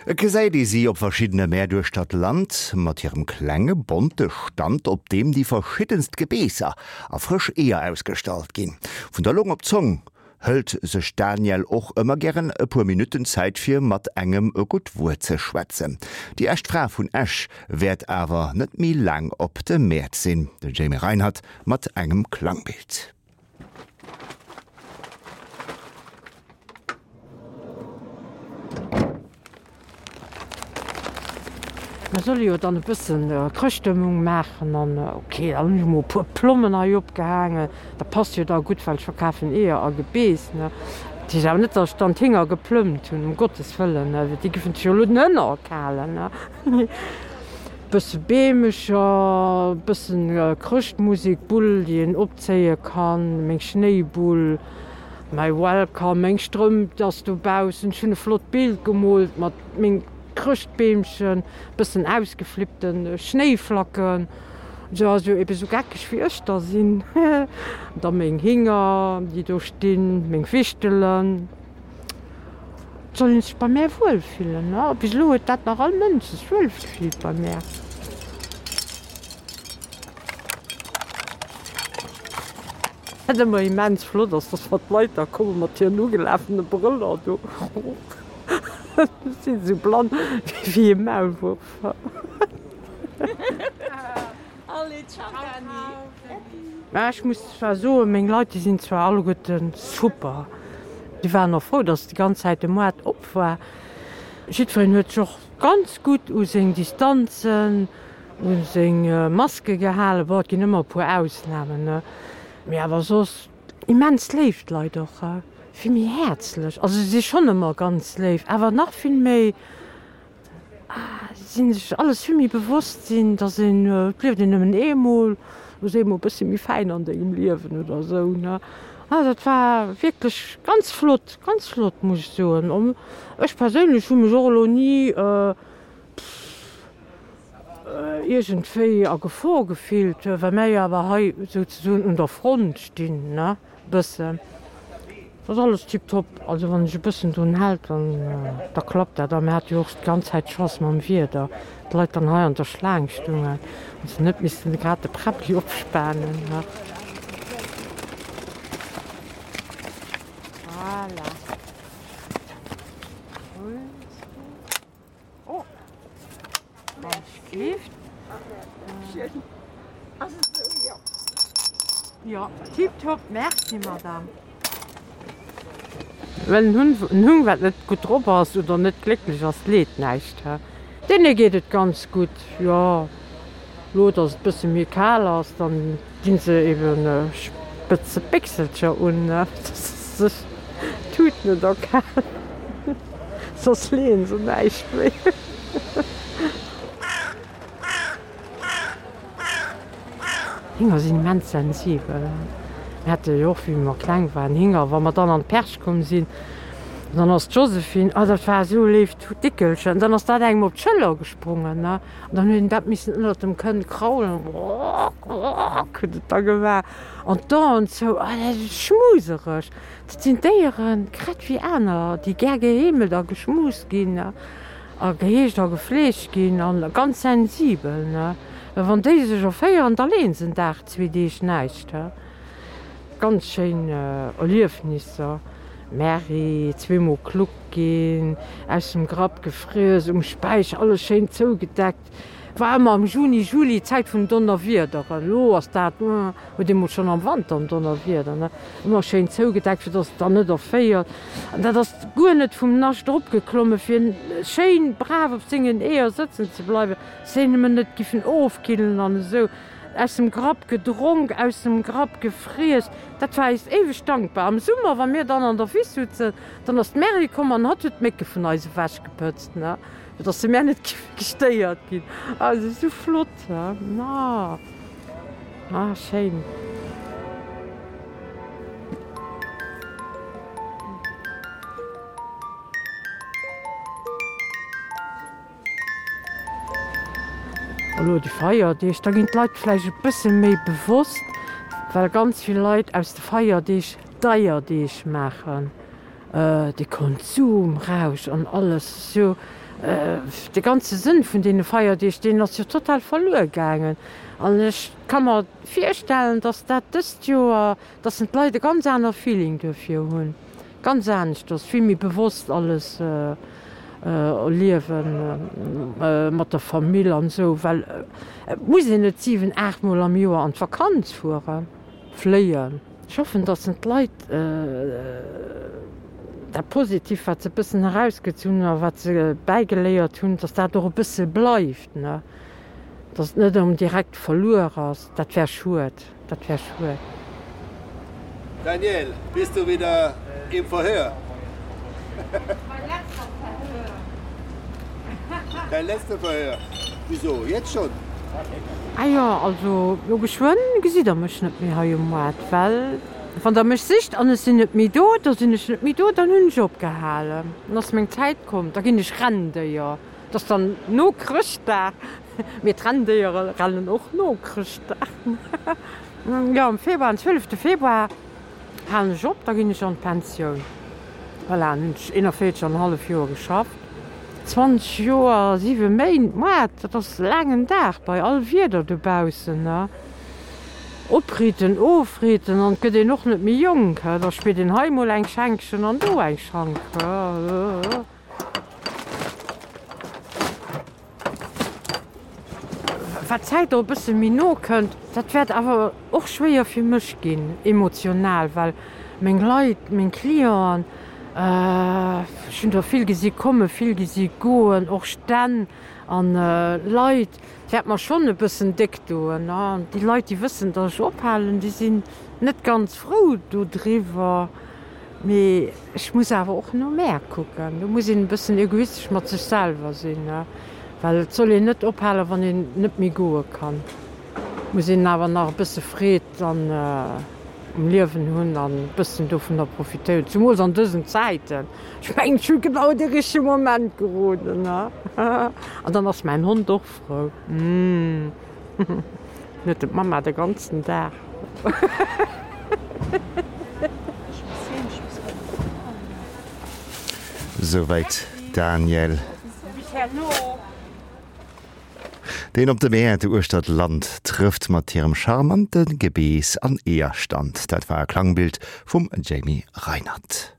Et gesäit ee si op verschiddene Mäert uechter d'Land mat hirem klenge bonte Stand, op deem déi verschiddenst Gebeesser a frësch Eeër ausgestallt ginn. Vun der Long op d'Zong hëlt sech d'Danièle och ëmmer gären e puer Minutten Zäit fir mat engem e gutt Wuert ze schwätzen. Déi echt Fra vun Esch wäert awer net méi laang op de Mäert sinn. De Jamie Reinert mat engem Klangbild. Mer solle jo dann e bëssen Chrëschtstëmmung maachen an ok, dann hunn ech emol e puer Plommen hei opgehaangen. Dat passt jo da gutt, well ech verkafen Eeër a Gebeess, ne. Dat heescht awer net, datt ech dann d'Hinger geplëmmt hunn, um Gottes Wëllen, ne, déi géifen sech jo elo den Hënner erkalen, ne. Bësse Beemecher, bëssen Chrëschtmusek, Bull, déi een opzéie kann, meng Schnéibull. Mäi Welcome, meng Strëmp ass dobaussen, ech hunn e flott Bild gemoolt mat mengem Chrëschtbeemchen, bëssen ausgeflippten Schnéiflacken, sou also eben sou geckeg wéi ech da sinn, da meng Hinger déi do stinn, meng Wichtelen. Et soll een sech bei mär wuel fillen, a bis elo huet dat nach all Mënsch sech wuel gefillt bei mär. Wat ëmmer immens flott ass, dass wann d'Leit da komme mat hiren ugelafene Brëller do, si sou blann wéi e Maulwuerf. Mä ech muss zwar soen, meng Leit, déi sinn zwar alleguerte super, déi waren och frou, dass déi ganz Zäit de Moart op war. Jiddwereen huet sech och ganz gutt u seng Distanzen, U seng Maske gehalen. Bon, et ginn ëmmer e puer Ausnamen, ne? Mee awer soss immens léif d'Leit och, vill méi häerzlech. Also se si schonn ëmmer ganz léif, awer nach vill méi si sech alles vill méi bewosst sinn, dass een, et lieft een nëmmen eemol, lo si emol e bësse méi fäin an dengem Liewen oder esou, ne? Ah, dat war wierklech ganz flott, ganz flott, muss ech soen. Ech perséinlech hu mech och elo ni, iergendwéi a Gefor gefillt, well mär jo awer hei souzesoen un der Front stinn, ne, bëssen. Dat ass alles tiptop. Also wann ech e bëssen drun hält, dann, da klappt dat. A mir hate jo och d'ganz Zäit Chance mam Wieder, d'Leit dann hei an der Schlaang stungen an se net missten grad de Präbbli opspanen, ne. Voilà. Oh. Jo, tiptop, merci Madame. Well en Hunn, en Hung wat net gutt drop ass oder net glécklech ass, leet näischt. Deene geet et ganz gutt, jo. Lo dass et bësse méi kal ass, dann dinn se eben spëtze Béchselcher un, dass se sech d'Tut net erkalen, soss leeën se näischt méi. Hinger sinn immens sensibel. Mir hate jo och, wéi mer kleng waren, Hinger. Wa mer dann an d'Perch komm sinn, dann ass d'Josephine, oh dat war esou e léift Dickelchen, dann ass dat engem op d'Schëller gesprongen. An dann huet een dat missen ënnert dem Kënn kraulen, grrrk huet et da gemaach an d'Aen zou, oh dat ass schmusereg. Dat sinn Déieren, grad wéi aner, déi gär geheemelt a geschmust ginn a geheegt a gefleegt ginn a ganz sensibel, ne. Well wann déi sech erféieren, da leeën se en Dag, zwee Deeg näischt, he. Ganz schéin Erliefnisser. Merri, zweemol klug ginn, aus dem Grapp gefriess, um Späicher alles schéin zougedeckt. War ëmmer am Juni, Juli, Zäit vun Donnerwiederen. Elo ass dat, huet ee mol schonn am Wanter en Donnerwieder, ne? Ëmmer schéin zougedeckt, fir dass et dann net erféiert. An dat ass guer net vum Nascht eropgeklommen, fir schéin brav op sengen Eeër sëtzen ze bleiwen, dass se nëmmen net giffen ofkillen an esou. Aus dem Grapp gedronk, aus dem Grapp gefriess, dat war eis éiweg dankbar. Am Summer, wa mir dann an der Wiss sutzen, dann ass d'Mary komm an hatt huet d'Mécke vun eis ewechgepëtzt, ne, fir dass se mär net géife gestéiert ginn. Also esou flott, ne, ah, schéin. Elo déi Feierdeeg, da ginn d'Leit vläicht e bësse méi bewosst, well ganz vill Leit aus de Feierdeeg Deierdeeg maachen. De Konsumrausch an alles esou, de ganze Sënn vun deene Feierdeeg, deen ass jo total verluer gaangen. An ech ka mer virstellen, datt dat dëst Joer, datt d'Leit e ganz aner Feeling duerfir hunn, ganz aneschters, vill méi bewosst alles liewen mat der Famill an esou, well et muss een net 7, 8 mol am Joer an d'Vakanz fueren, fléien. Ech hoffen, datt en d'Leit dat Positivt, wat se e bëssen erausgezunn hunn a wat se bäigeléiert hunn, datt dat och e bësse bleift, ne, datt et net erëm direkt verluer ass. Dat wär schued, dat wär schued. Daniel, bist du wieder im Verhör? Mein letzter Verhör. Dein letzter Verhör? Wieso, jetzt schon? Ah jo, also lo geschwënn gesitt der mech net méi hei um Moart, well wann der mech sicht an ech sinn net méi do, da sinn ech net méi do, dann hunn ech opgehalen, dann ass meng Zäit komm, da ginn ech Renndéier. Dat ass dann no Chrëschtdag, mee d'Renndéiere rennen och no Chrëschtdag. Jo, am Februar, am 12 Februar halen ech op, da ginn ech an d'Pensioun. Voilà, dann hunn ech 41 an e hallef Joer geschafft. 20 Joer a 7 Méint, Moart, dat ass e laangen Dag bei all Wieder dobaussen, ne? Opritten, ofritten an et gëtt een och net méi jonk, da spiert een hei mol eng Schenkchen an do eng Schank. Wat d'Zäit och e bësse méi no kënnt, dat wäert awer och schwéier fir mech ginn, emotional, well meng Leit, meng Clienten, ech hunn der vill gesi kommen, vill gesi goen, och Stänn an Leit, et wäert mer schonn e bëssen déck doen. An déi Leit, déi wëssen, datt ech ophalen, déi sinn net ganz frou dodriwwer. Mee ech muss awer och no mär kucken. Do muss een e bëssen egoistesch mat sech selwer sinn, well et soll een net ophalen, wann een net méi goe kann. Et muss een awer nach e bësse Freed dann um Liewen hunn an e bëssen dovunner profitéieren, zumools an dësen Zäiten. Ech mengen, ech hu genau de richtege Moment geroden. An dann ass mäin Hond och frou. Huet en d'Mamma de ganzen Dag. Souwäit Daniel. Deen op de Mäert uechter d'Land trëfft mat hirem charmante Gebeess an Eeërstand. Dat war e Klangbild vum Jamie Reinert.